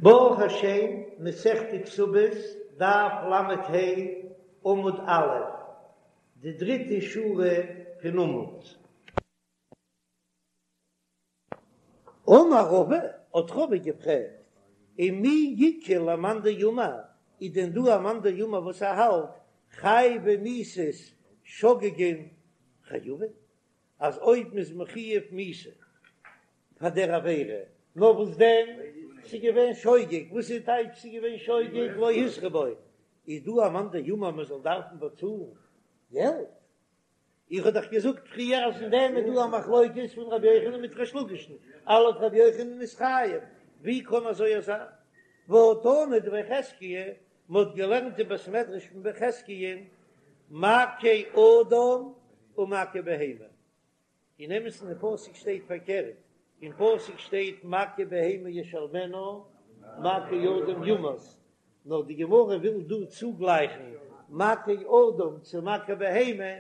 ברוך השם, מסכת כתובות, דף ל"ה, עמוד א', די דריטע שורה פון עמוד. אמר רבא, האט רבא געפרעגט, ומי איכא למאן דאמר, איז דען דא א מאן דאמר וואס ער האלט חייבי מיתות שוגגין חייבין, אז אויב מ'איז מחויב מיתה פאר דער עבירה, נאר וואס דען, ס'איז געווען שוגג, וואס איז טייטש ס'איז געווען שוגג לא התרו בו, איז דא א מאן דאמר מ'זאל דארפן באצאלן געלט? איך האב דאך געזאגט פריער אז אין דעם איז דא א מחלוקת פון רבי יוחנן מיט ריש לקיש'ן, לויט רבי יוחנן איז חייב, ווי קען אזוי זיין? והא תנא דבי חזקיה, מ'האט געלערנט אין בית מדרש פון בי חזקיה'ן, מכה אדם ומכה בהמה, אין אמת'ן אין פסוק שטייט פארקערט, אין פסוק שטייט מכה בהמה ישלמנה מכה אדם יומת, נאר די גמרא וויל דא צוגלייכן מכה אדם צו מכה בהמה,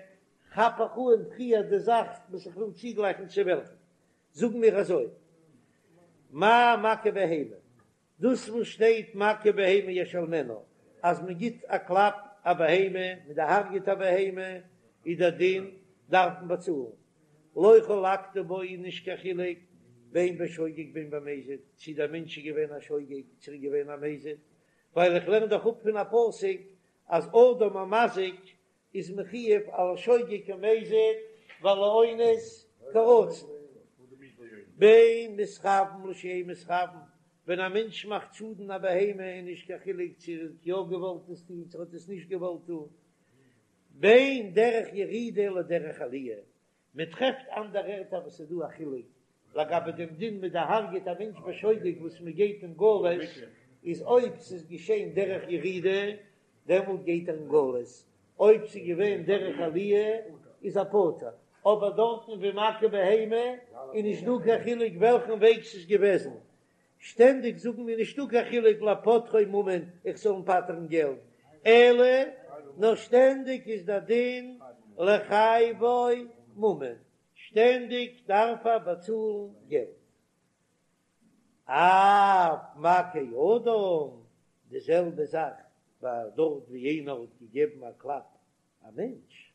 כאפ איך אן פריער די זאך וואס איך וויל צוגלייכן צו וועלכן, זאגן מיר אזוי, מה מכה בהמה, דאס וואס שטייט מכה בהמה ישלמנה, אז מען גיט א קלאפ א בהמה, מען דערהרגעט א בהמה, איז דער דין דארף מען באצאלן. לא חלקת בו איז נישט קיין חילוק בין בשוגג בין במזיד, צי דער מענטש איז געווען א שוגג צי ער איז געווען א מזיד, ווייל איך לערן דאך אפ פון א פסוק אז אדם המזיק איז מחויב על השוגג כמזיד ועל האונס כרצון. בין מתכוין לשאין מתכוין, ווען א מענטש מאכט שאדן א בהמה איז נישט קיין חילוק צו ער האט יא געוואלט עס טון צו ער האט עס נישט געוואלט טון, בין דרך ירידה לדרך עליה, מען טרעפט אנדערע ערטער וואס איז דא א חילוק לגבי דעם דין מען דערהרגעט א מענטש בשוגג וואס מען גייט אין גלות, איז אויב ס'איז געשען דרך ירידה דעמאלט גייט ער אין גלות, אויב ס'איז געווען דרך עליה איז ער פטור, אבער דארטן ווי מכה בהמה איז נישט דא קיין חילוק וועלכן וועג ס'איז געוועזן, שטענדיג זאגן מיר נישטא קיין חילוק לפוטרו ממון איך זאל אים פטר'ן געלט, אלא נאר שטענדיג איז דער דין לחייבו ממון, שטענדיג דארף ער באצאלן געלט. אף מכה אדם, די זעלבע זאך ביי דארט ווי איינער האט געגעבן א קלאפ א מענטש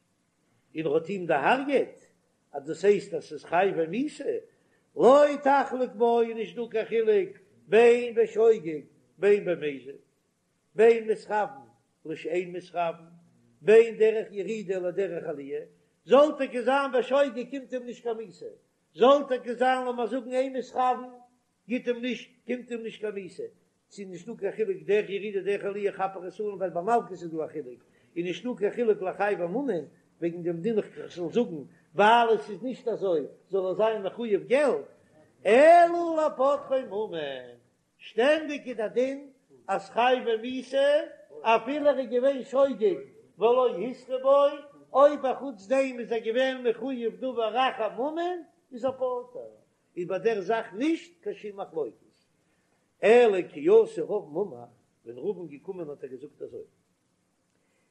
און ער האט אים דערהרגעט, אז דאס הייסט אז ס'איז חייבי מיתה, לא תחלוק בו איז נישט דא קיין חילוק בין בשוגג בין במזיד, בין מתכוין לשאין מתכוין, בין דרך ירידה לדרך עליה, זאל טאקע זיין בשוגג קומט אים נישט קיין מיתה, זאל טאקע זיין לאמיר זאגן אין מתכוין גיט אים נישט קומט אים נישט קיין מיתה, ס'איז נישטא קיין חילוק דרך ירידה דרך עליה כאפ איך עס אן ווייל ביי מלקות איז דא א חילוק, איז נישטא קיין חילוק לחייבו ממון וועגן דעם דין איך זאל זאגן ווייל עס איז נישט אזוי זאל ער זיין מחויב געלט, אלא לפוטרו ממון, שטענדיג איז דער דין אז חייבי מיתה אפילו ער איז געווען שוגג ולא התרו בו, אויב אחוץ דעם איז ער געווען מחויב דבר אחר ממון איז ער פטור, איז ביי דער זאך נישט קיין שום מחלוקת. אלא כי אתא רבין אמר, ווען רבין געקומען האט ער געזאגט אזוי,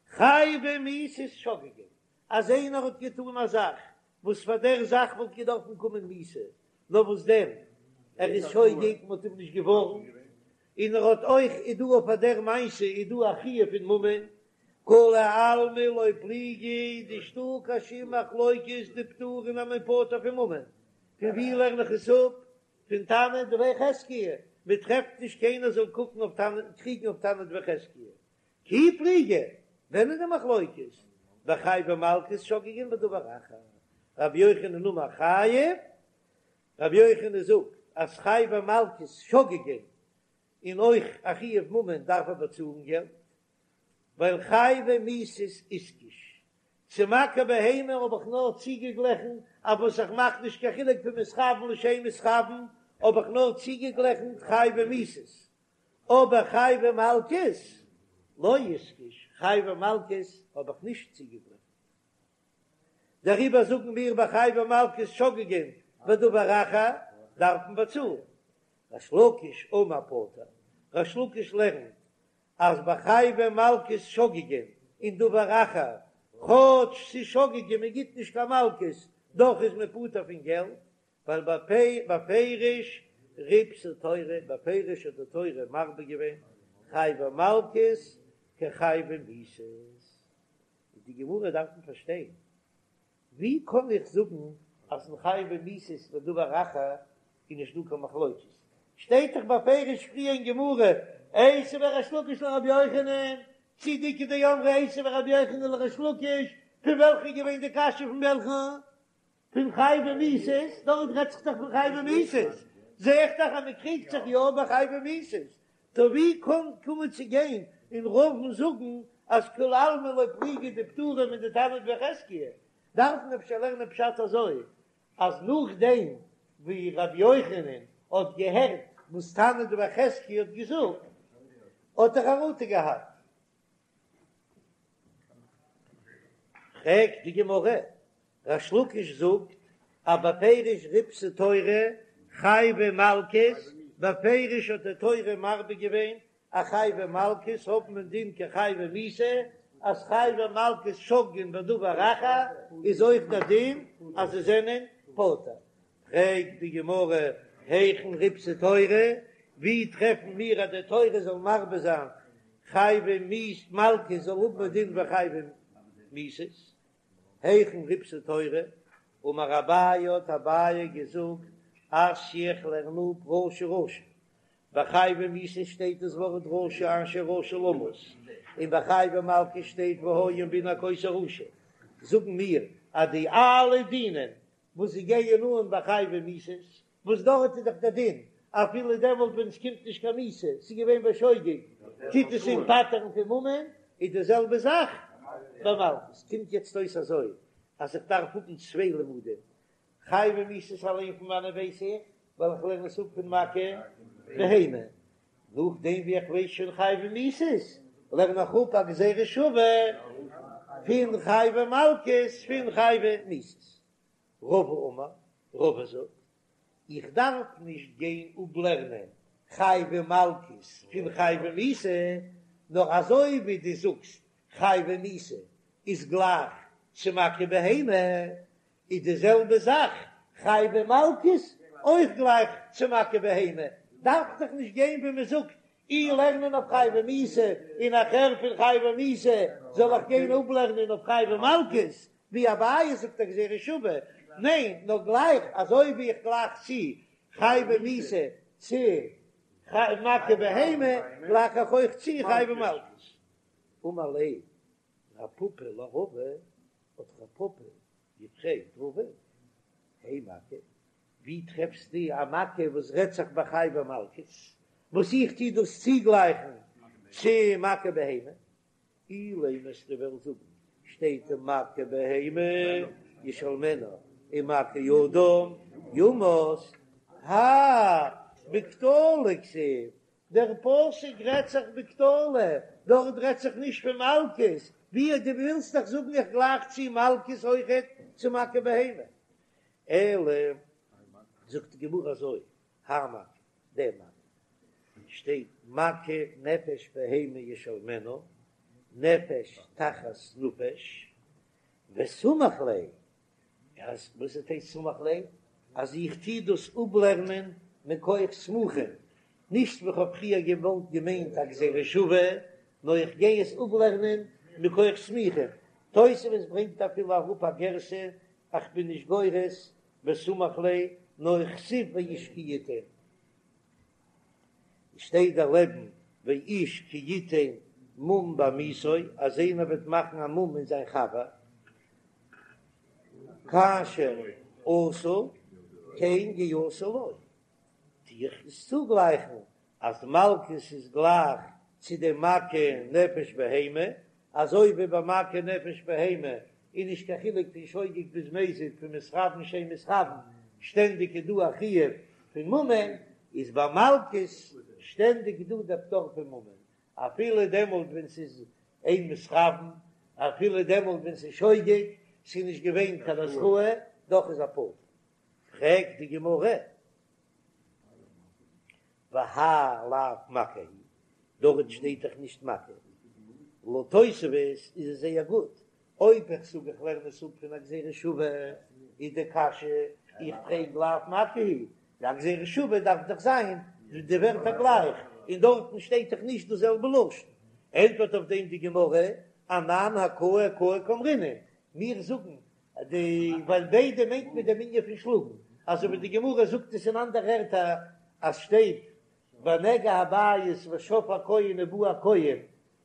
חייבי מיתות שוגגין, אז איינער האט געטאן א זאך וואס פאר דער זאך וואלט געדארפן קומען מיתה, נאר וואס דען, ער איז שוגג, מען האט אים נישט געווארנט, און ער האט אויך, איז דא אויף דער מעשה איז דא א חיוב פון ממון, כולי עלמא לא פליגי, נישטא קיין שום מחלוקת דפטורין אז מ'איז פטור פון ממון, פון ווי לערן איך עס אפ? פון תנא דבי חזקיה, מען טרעפט נישט קיינער זאל קוקן אויף תנא, קריגן אויף תנא דבי חזקיה. כי פליגי, ווען איז די מחלוקת? בחייבי מלקות שוגגין ודבר אחר. רבי יוחנן אמר חייב, רבי יוחנן זאגט אז חייבי מלקות שוגגין און אויך א חיוב ממון דארף ער באצאלן געלט, ווייל חייבי מיתות איתקש, צו מכה בהמה האב איך נאר צוגעגליכן אויף וואס איך מאך נישט קיין חילוק פון מתכוין לשאין מתכוין, האב איך נאר צוגעגליכן חייבי מיתות, אבער חייבי מלקות לא איתקש, חייבי מלקות האב איך נישט צוגעגליכן. דעריבער זאגן מיר ביי חייבי מלקות שוגגין ודבר אחר דארף מען באצאלן. ריש לקיש אמר פטור, ריש לקיש לערנט אז ביי חייבי מלקות שוגגין און דבר אחר, כאטש ס'איז שוגגין מען גיט נישט קיין מלקות, דאך איז מען פטור פון געלט, ווייל בפירוש. ריבתה תורה, בפירוש האט די תורה מרבה געווען חייבי מלקות כחייבי מיתות. איז די גמרא דארף מען פארשטיין, ווי קען איך זאגן אז אין חייבי מיתות בדבר אחר איז נישט דא קיין מחלוקת? שטייט דאך בפירוש פריער אין גמרא, איתיביה ריש לקיש לרבי יוחנן, צי די איכא דאמרי איתיביה רבי יוחנן לריש לקיש, פון וועלכע איז געווען די קשיא פון וועלכן? פון חייבי מיתות, דארט רעדט זיך דאך פון חייבי מיתות, זע איך דאך אז מען קריגט זיך יא ביי חייבי מיתות, טא ווי קען קומען צו גיין און רבא'ן זאגן אז כולי עלמא לא פליגי דפטורים מן דתנא דבי חזקיה, דארף מען אפשר לערנען פשט אזוי אז נאכדעם ווי רבי יוחנן האט געהערט וואס תנא דבי חזקיה האט געזאגט האט ער חרטה געהאט. פרעגט די גמרא, ריש לקיש זאגט אז בפירוש ריבתה תורה חייבי מלקות, בפירוש האט די תורה מרבה געווען אז חייבי מלקות האבן א דין כחייבי מיתה, אז חייבי מלקות שוגגין בדבר אחר איז אויך דער דין אז זיי זענען פטור. פרעגט די גמרא, היכן ריבתה תורה, ווי טרעפן מיר אז די תורה זאל מרבה זיין חייבי מלקות זאל האבן א דין ווי חייבי מיתות? היכן ריבתה תורה? אמר אביי האט אביי געזאגט, אתיא איך לערן אפ רשע רשע, ביי חייבי מיתות שטייט דאס ווארט רשע אשר רשע למות, און ביי חייבי מלקות שטייט והיה אם בן הכות הרשע, זאגן מיר אז די אלע דינים וואס זיי גייען אן ביי חייבי מיתות, וואס דארט איז דאך דער דין אפילו דעמאלט ווען עס קומט נישט קיין מיתה, ס'איז געווען בשוגג, טוט עס אים פטר'ן פון ממון, איז די זעלבע זאך ביי מלקות. קומט יעצט אויס אזוי אז איך דארף האבן צוויי לימודים, חייבי מיתות אליין פון וואנען ווייס איך, ווייל איך לערן עס אפ פון מכה בהמה, נאכדעם ווי איך ווייס שוין חייבי מיתות, לערן איך אפ א גזירה שווה פון חייבי מלקות פון חייבי מיתות. רבא אמר, רבא זאגט, איך דארף נישט גיין אפלערנען חייבי מלקות פון חייבי מיתה, נאר אזוי ווי דו זאגסט חייבי מיתה איז גלייך צו מכה בהמה, איז די זעלבע זאך חייבי מלקות אויך גלייך צו מכה בהמה, דארף דאך נישט גיין ווי מען זאגט אי לערנען אויף חייבי מיתה און נאכהער פון חייבי מיתה זאל איך גיין אפלערנען אויף חייבי מלקות, ווי אביי זאגט א גזירה שווה, ניין נאר גלייך אזוי ווי איך גלייך צו חייבי מיתה צו מכה בהמה גלייך איך אויך צו חייבי מלקות. אמר ליה רב פפא לרבא, האט רב פפא געפרעגט רבא, הי מכה, ווי טרעפסטו א מכה וואס רעדט זיך ביי חייבי מלקות, וואס איך טו דאס צוגלייכן צו מכה בהמה? אילימא וועסטו וועלן זאגן, שטייט מכה בהמה ישלמנה און מכה אדם יומת, האי בקטלא כתיב, דער פסוק רעדט זיך בקטלא, דארט רעדט זיך נישט פון מלקות, ווי דו ווילסט דאך זאגן איך גלייך צו מלקות אויכעט צו מכה בהמה, אלא זאגט די גמרא אזוי, האי מכה, די מכה, שטייט מכה נפש בהמה ישלמנה, נפש תחת נפש, וסמיך ליה, אז וואס איז טייטש סמיך ליה? אז איך טוה דאס אפלערנען מכח סמוכין, נישט ווי כ'האב פריער געוואלט געמיינט א גזירה שווה, נאר איך גיי עס אפלערנען מכח סמוכין. תוספות ברענגט אפילו אראפ א גירסא, איך בין נישט גורס וסמיך ליה, נאר כתיב ואיש כי יתן. שטייט דערלעבן ואיש כי יתן מום בעמיתו, אז איינער וועט מאכן א מום אין זיין חבר, כאשר עשה כן יעשה לו, טו איך עס צוגלייכן אז מלקות איז גלייך צו די מכה נפש בהמה, אזוי ווי ביי מכה נפש בהמה איז נישט קיין חילוק פון שוגג ביז מזיד פון מתכוין שאין מתכוין, שטענדיג איז דא א חיוב פון ממון, איז ביי מלקות שטענדיג דא דער פטור פון ממון, אפילו דעמאלט ווען ס'איז אין מתכוין, אפילו דעמאלט ווען ס'איז שוגג, ס'איז נישט געווען קיין התראה, דאך איז ער פטור. פרעגט די גמרא, והאי לאו מכה הוא, דארט שטייט דאך נישט מכה. לויט תוספות איז עס זייער גוט, אויב איך זאג איך לערן עס אפ פון א גזירה שווה, איז די קשיא, איך פרעג לאו מכה הוא. א גזירה שווה דארף דאך זיין די ווערטער גלייך, און דארטן שטייט דאך נישט דאס זעלבע לשון. ענטפערט אויף דעם די גמרא, אנן הכאה הכאה קאמרינן, מיר זאגן די ווייל ביידע מיינט מען דעם ענין פון שלאגן, אזוי ווי די גמרא זאגט עס אין אנדערע ערטער אז שטייט בנגע הבית ושב הכהן ובא הכהן,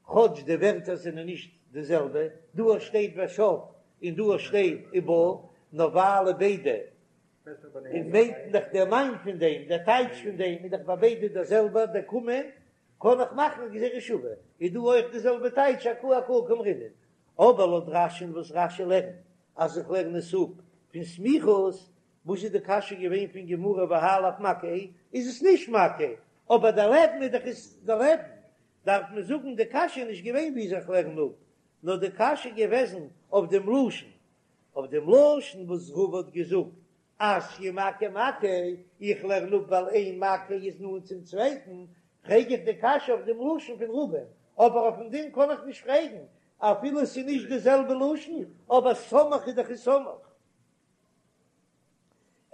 כאטש די ווערטער זענען נישט די זעלבע, דא שטייט ושב און דא שטייט ובא, נאר ווייל ביידע און מיינט דאך דער מיין פון דעם, דער טייטש פון דעם איז דאך ביי ביידע דער זעלבער, דער קומען קען איך מאכן א גזירה שווה, איז דא אויך די זעלבע טייטש הכאה הכאה קאמרינן. אבער לויט רש"י'ן וואס רש"י לערנט אז איך לערן עס אפ פון סמיכות, וואס איז די קשיא געווען פון גמרא והאי לאו מכה איז עס נישט מכה, אבער דער לעבן איז דאך איז דער לעבן, דארף מען זאגן די קשיא איז נישט געווען ווי איך לערן אפ, נאר די קשיא איז געוועזן אויף דעם לשון, אויף דעם לשון וואס רבא האט געזאגט אתיא מכה מכה, איך לערן אפ ווייל איין מכה איז נאנט צום צווייטן, פרעג איך די קשיא אויף דעם לשון פון רבא'ן, אבער אויפן דין קען איך נישט פרעגן, אפילו עס איז נישט די זעלבע לשון, אבער סמך איז דאך איז סמך.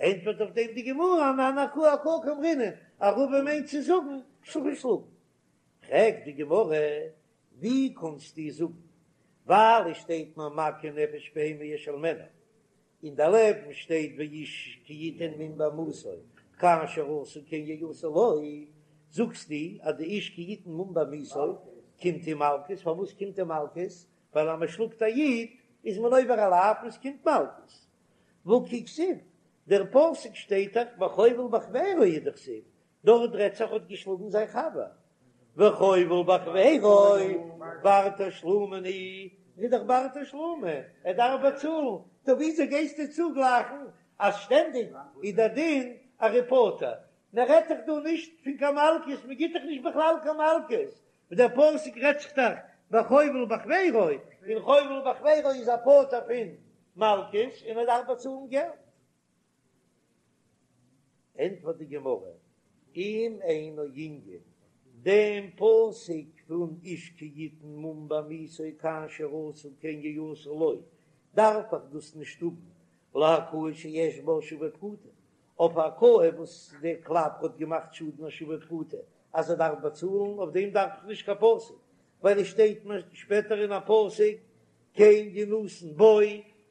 ענטפערט אויף דעם די גמרא, אנן הכאה הכאה קאמרינן, אז רבא מיינט צו זאגן שלאגן שלאגן. פרעגט די גמרא, ווי קאנסטו זאגן, ווייל עס שטייט מיר מכה נפש בהמה ישלמנה, און דערלעבן שטייט ואיש כי יתן מום בעמיתו כאשר עשה כן יעשה לו, זאגסטו אז די איש כי יתן מום בעמיתו קומט אים מלקות, פארוואס קומט אים מלקות? ווייל אז מען שלאגט א איד איז מען עובר א לאו און עס קומט מלקות. והא כי כתיב, דער פסוק שטייט דאך בחובל בחבירו הוא דכתיב, דארט רעדט זיך האט געשלאגן זיין חבר, וחובל בחבירו בר תשלומין הוא, איז דאך בר תשלומין, ער דארף באצאלן, טא וויאזוי גייסטו צוגלייכן אז שטענדיג איז דער דין אז ער איז פטור? מען רעדט דאך דא נישט פון קיין מלקות, מען גיט דאך נישט בכלל קיין מלקות, דער פסוק רעדט זיך דאך בחובל בחבירו, און חובל בחבירו איז א פטור פון מלקות און ער דארף באצאלן געלט. ענטפערט די גמרא, אם אינו ענין, דעם פסוק פון איש כי יתן מום בעמיתו כאשר עשה כן יעשה לו, דארף איך דאס נישט האבן להכאה שיש בה שווה פרוטה, אויף א הכאה וואס דער קלאפ האט געמאכט שאדן א שווה פרוטה אז ער דארף באצאלן, אויף דעם דארף איך נישט קיין פסוק, ווייל עס שטייט שפעטער אין א פסוק כן ינתן בו,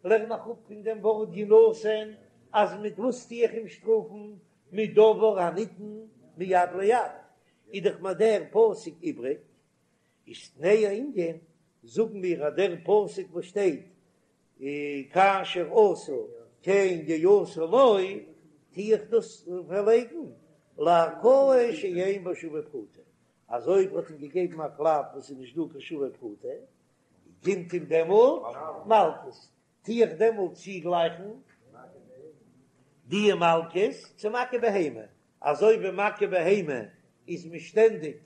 לערן איך אפ פון דעם ווארט ינתן אז מיט וואס טו איך אים שטראפן, מיט דבר הניתן מיד ליד, איז דאך מיר דער פסוק איבריג, איז תנהו ענין, זאגן מיר אז דער פסוק וואס שטייט כאשר עשה כן יעשה לו, טו איך דאס פארלייגן להכאה שאין בה שווה פרוטה, אז אויב האט אים געגעבן א קלאפ וואס איז נישט דא קיין שווה פרוטה, קומט אים דעמאלט מלקות, טו איך דעמאלט צוגלייכן די מלקות צו מכה בהמה, אזוי ווי מכה בהמה איז מען שטענדיג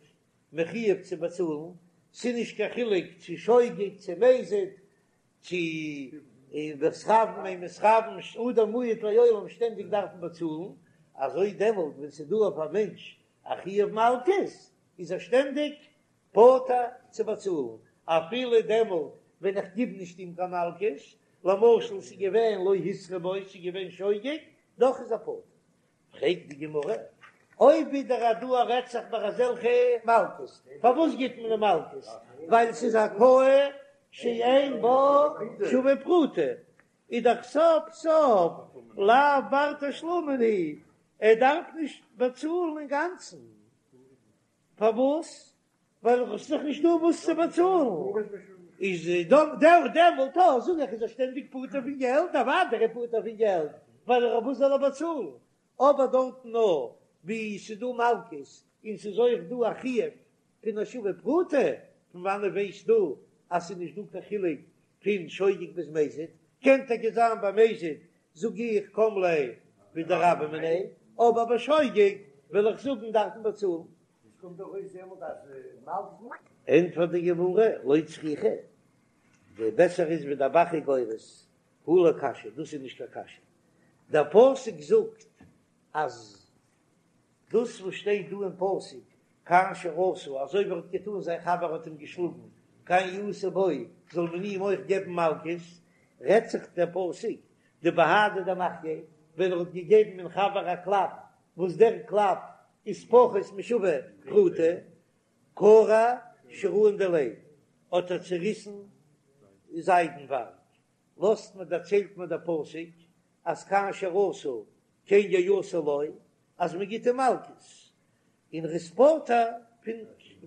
מחיוב צו באצאלן, ס'איז נישט קיין חילוק צו שוגג צו מזיד, צו מתכוין אין מתכוין, אדם מועד לעולם שטענדיג דארף מען באצאלן, אזוי דעמאלט ווען ס'איז דא אויף א מענטש א חיוב מלקות איז ער שטענדיג פטור צו באצאלן, אפילו דעמאלט ווען איך גיב נישט אים קיין מלקות, למשל ס'איז געווען לא התרו בו, ס'איז געווען שוגג, דאך איז ער פטור. פרעגט די גמרא, אויב ווידער אז דא רעדט זיך ביי אזעלכע מלקות, פארוואס גיט מען די מלקות? ווייל ס'איז הכאה שאין בה שווה פרוטה, איז דאך סוף סוף לאו בר תשלומין הוא, ער דארף נישט באצאלן אינגאנצן. פארוואס? ווייל עס איז דאך נישט דא וואס צו באצאלן. איז דעמאלט אויך זאג איך איז ער שטענדיג פטור פון געלט, אוודאי ער איז פטור פון געלט, ווייל אויף וואס זאל ער באצאלן? אבער דארטן נאר ווי ס'איז דא מלקות און ס'איז אויך דא א חיוב פון א שווה פרוטה, פון וואנעט ווייסטו אז ס'איז נישט דא קיין חילוק פון שוגג ביז מזיד? קען טאקע זיין ביי מזיד זאג איך קם ליה בדרבה מיניה, אבער ביי שוגג וועל איך זאגן דארף מען באצאלן. עס קומט דאך אויס דעמאלט אז מלקות. ענטפערט די גמרא, לא צריכא, די בעסער איז ווי דער ב"ח איז גורס, הא לא קשיא, דאס איז נישט קיין קשיא, דער פסוק זאגט אז דאס וואס שטייט דא אין פסוק כאשר עשה, אזוי ווי ער האט געטאן זיין חבר האט אים געשלאגן, כן יעשה בו, זאל מען אים אויך געבן מלקות, רעדט זיך דער פסוק דבהדי דמחייה, ווען ער האט געגעבן אין חבר א קלאפ. וואס דער קלאפ איז פחות משווה פרוטה, קרע שיראין דיליה, האט ער צעריסן זיידנווארג, לאזט מען דערציילט מיר דער פסוק אז כאשר עשה כן יעשה לו, אז מען גיט אים מלקות, און ער איז פטור פון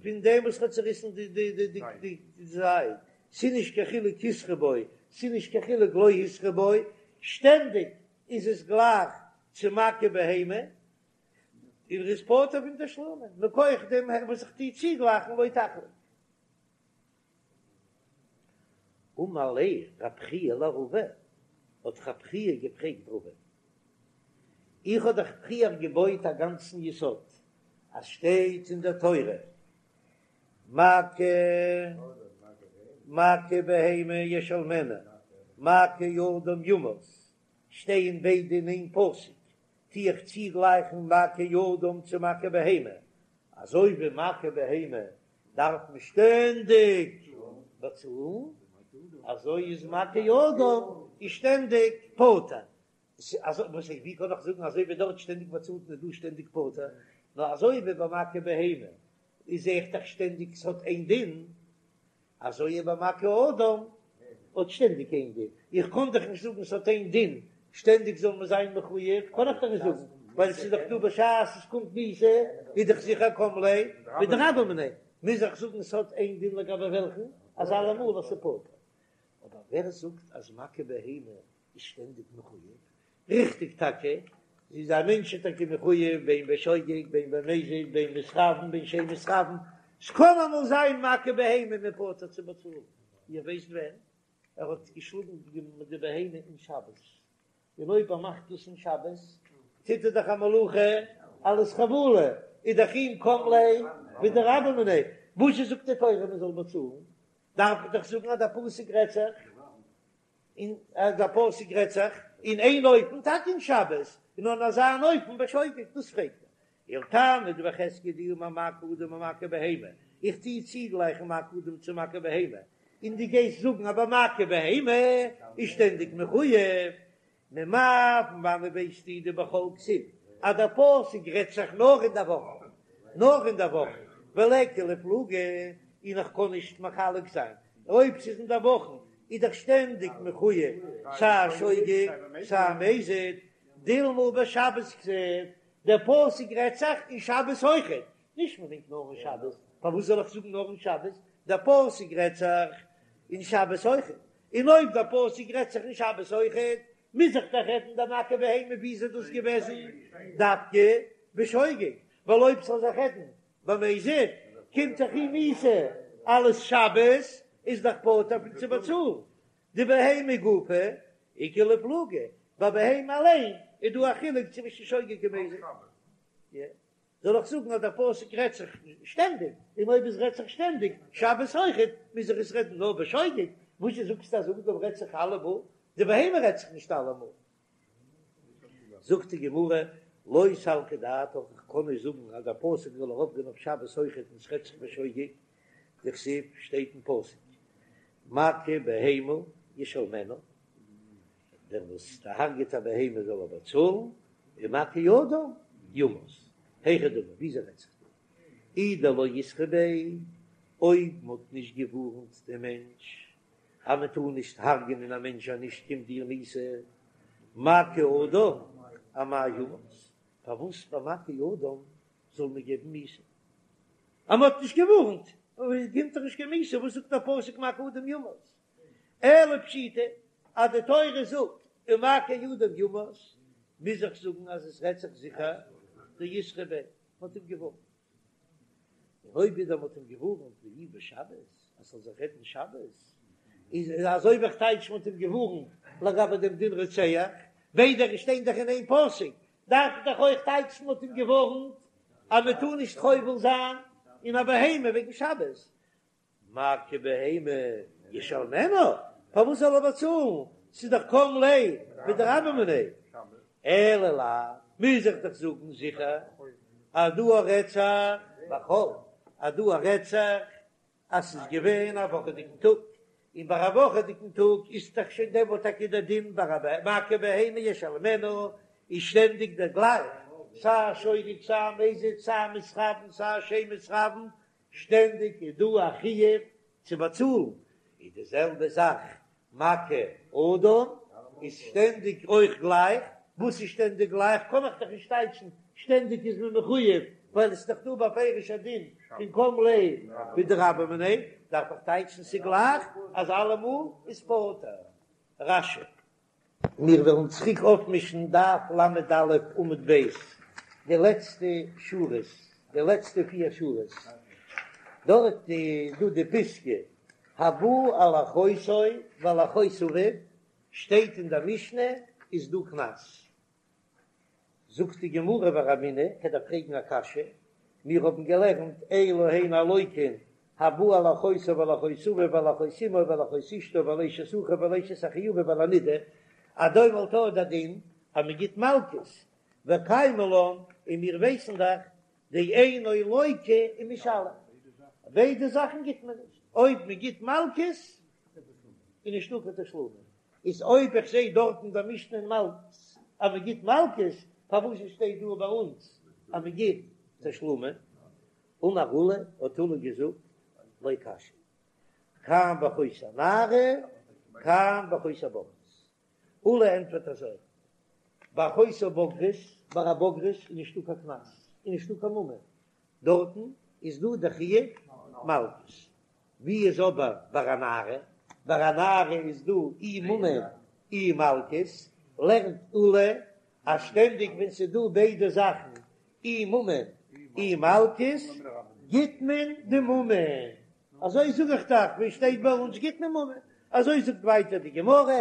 פון דעם וואס האט צעריסן די די די די די זייד, ס'איז נישט קיין חילוק התרו בו, ס'איז נישט קיין חילוק לא התרו בו, שטענדיג איז עס גלייך צו מכה בהמה, און ער איז פטור פון תשלומין, מכח דעם וואס איך טוה צוגלייכן לא תחלוק. אמר ליה רב חייא לרבא, האט רב חייא געפרעגט רבא, איך האב דאך פריער געבויט א גאנצן יסוד אז שטייט אין דער תורה מכה מכה בהמה ישלמנה מכה אדם יומת, שטייען ביידע אין איין פסוק, טו איך צוגלייכן מכה אדם צו מכה בהמה, אזוי ווי מכה בהמה דארף מען שטענדיג באצאלן, אזוי איז מכה אדם איז שטענדיג פטור. אזוי וואס איך ווי קען איך זאגן אזוי ווי דארט שטענדיג באצאלט מען דא שטענדיג פטור, נאר אזוי ווי ביי מכה בהמה איז זעה איך דאך שטענדיג ס'האט איין דין, אזוי איז ביי מכה אדם האט שטענדיג איין דין, איך קען דאך נישט זאגן ס'האט איין דין, שטענדיג זאל מען זיין מחויב, קען איך דאך נישט זאגן, ווייל ס'איז דאך דא בשעת עס קומט מיתה איז דאך זיכער קם ליה בדרבה מיניה, מוז איך זאגן ס'האט איין דין לגבי וועלכן, אז אלעמאל אז ס'פטור. אבער ווער זאגט אז מכה בהמה איז שטענדיג מחויב, ריכטיג טאקע, איז א מענטש איז טאקע מחויב בין בשוגג בין במזיד בין מתכוין בין שאין מתכוין, ס'קען אמאל זיין מכה בהמה מ'איז פטור צו באצאלן, איר ווייסט ווען ער האט געשלאגן די בהמה אין שבת, און אויב ער מאכט דאס אין שבת טוט ער דאך א מלאכה אלס חבלה, איז דאך אים קם ליה בדרבה מיניה, וואס זאגט די תורה מען זאל באצאלן, דארף איך דאך זאגן אז דער פסוק רעדט זיך. און אז דער פסוק רעדט זיך אין איין אופן טאקע אין שבת, און אין אזא אן אופן בשוגג, דאס פרעגט ער. ולתנא דבי חזקיה דאמר מכה אדם ומכה בהמה, איך טוה צוגלייכן מכה אדם צו מכה בהמה, און דו גייסט זאגן אז ביי מכה בהמה איז שטענדיג מחויב, ממאי פון וואנעט ווייסטו דבחול כתיב אז דער פסוק רעדט זיך נאר אין דער וואך, נאר אין דער וואך, וליכא לאיפלוגי, און איך קען נישט מחלק זיין אויב ס'איז אין דער וואכן איז דאך שטענדיג מחויב סיי שוגג סיי מזיד, דילמא בשבת כתיב, דער פסוק רעדט זיך אין שבת אויכעט, נישט מ'מיינט נאר אין שבת, פארוואס זאל איך זאגן נאר אין שבת, דער פסוק רעדט זיך אין שבת אויכעט, און אויב דער פסוק רעדט זיך אין שבת אויכעט, מוז איך דאך רעדן דער מכה בהמה ווי איז דאס געוועזן דווקא בשוגג, ווייל אויב ס'זאל זיך רעדן במזיד קומט דאך אים מיתה אלס שבת איז דאך פטור פון צו באצאלן דבהמה גופה איכא לאיפלוגי, ביי בהמה אליין איז דא א חילוק צווישן שוגג און מזיד. זאל איך זאגן אז דער פסוק רעדט זיך שטענדיג, און אויב עס רעדט זיך שטענדיג שבת אויכעט, מוז איך עס רעדן נאר בשוגג, וואס זשע זאגסטו אז אדם רעדט זיך אלעמאל, די בהמה רעדט זיך נישט אלעמאל. זאגט די גמרא, לא סלקא דעתך, איך קען נישט זאגן אז דער פסוק זאל ארויפגיין אויף שבת אויכעט און עס רעדט זיך בשוגג, דכתיב שטייט אין פסוק מכה בהמה ישלמנה, דער וואס דערהרגעט א בהמה זאל ער באצאלן, ומכה אדם יומת. היכי דמי, וויאזוי רעדט זיך דא? אי דלא אתרו ביה, אויב מ'האט נישט געווארנט דעם מענטש אז מען טאר נישט הרג'ענען א מענטש אז נישט קומט דיר מיתה, מכה אדם אמאי יומת, פארוואס ביי מכה אדם זאל מען געבן מיתה? אז מ'האט נישט געווארנט קומט דאך נישט קיין מיתה, וואס זאגט דער פסוק מכה אדם יומת? אלא פשיטא אז די תורה זאגט ומכה אדם יומת, מוז איך זאגן אז עס רעדט זיך זיכער דאתרו ביה, מ'האט אים געווארנט. און אויב ווידער מ'האט אים געווארנט ואי בשבת אז ס'זאל זיך רעדן שבת, איז אזוי ווי איך טייטש מ'האט אים געווארנט לגבי דעם דין רוצח, ביידע שטייען דאך אין איין פסוק, דארף איך דאך אויך טייטשן מ'האט אים געווארנט אז מ'טאר נישט חובל זיין אין א בהמה וועגן שבת, מכה בהמה ישלמנה, פארוואס זאל ער באצאלן, ס'איז דאך קם ליה בדרבה מיניה, אלא לאו, מוז איך דאך זאגן זיכער אז דא רעדט זיך בחול, אז דא רעדט זיך אז ס'איז געווען א וואכעדיגן טאג, און ביי א וואכעדיגן טאג איז דאך שוין דעמאלט טאקע דער דין ביי א מכה בהמה ישלמנה איז שטענדיג דער גלייך. סיי שוגג סיי מזיד סיי מתכוין סיי שאין מתכוין, שטענדיג איז דא א חיוב צו באצאלן, איז די זעלבע זאך מכה אדם איז שטענדיג אויך גלייך, וואס איז שטענדיג גלייך קען איך דאך נישט טייטשן, שטענדיג איז מען מחויב ווייל עס איז דאך דא בפירוש א דין פון קם ליה בדרבה מיניה, דארף איך טייטשן ס'גלייך אז אלעמאל איז פטור. רש"י. מיר וועלן צוריק אויפמישן דף ל"א עמוד ב', די לעצטע שורות, די לעצטע פיר שורות, דארט איז דא די פיסקא, הבא על אחותו ועל אחות אביו, שטייט אין דער משנה איז דא קנס. זאגט די גמרא ורמינהי, כ'דארף פרעגן א קשיא, מיר האבן געלערנט אלו הן הלוקין הבא על אחותו ועל אחות אביו ועל אחות אמו ועל אחות אשתו ועל אשת אחיו ועל אשת אחי אביו ועל הנידה, אז דעמאלט איז דער דין אז מען גיט מלקות, וקיימא לן, און מיר ווייסן דאך דאינו לוקה ומשלם, ביידע זאכן גיט מען נישט, אויב מען גיט מלקות איז נישטא קיין תשלומין, איז אויב איך זעה דארט אין דער משנה אין מלקות אז מען גיט מלקות, פארוואס שטייט דא ביי אונז אז מען גיט תשלומין? אמר עולא, האט עולא געזאגט, לא קשיא, כאן באחות הנערה, כאן באחות הבוגרת. עולא ענטפערט אזוי, באחות הבוגרת, ביי א בוגרת איז נישטא קיין קנס, איז נישטא קיין ממון, דארטן איז דא די חיוב מלקות. ווי איז אבער ביי א נערה? ביי א נערה איז דא אי ממון אי מלקות, לערנט עולא אז שטענדיג ווען ס'איז דא ביידע זאכן אי ממון אי מלקות גיט מען די ממון, אזוי זאג איך דאך ווי שטייט ביי אונז גיט מען ממון, אזוי זאגט ווייטער די גמרא,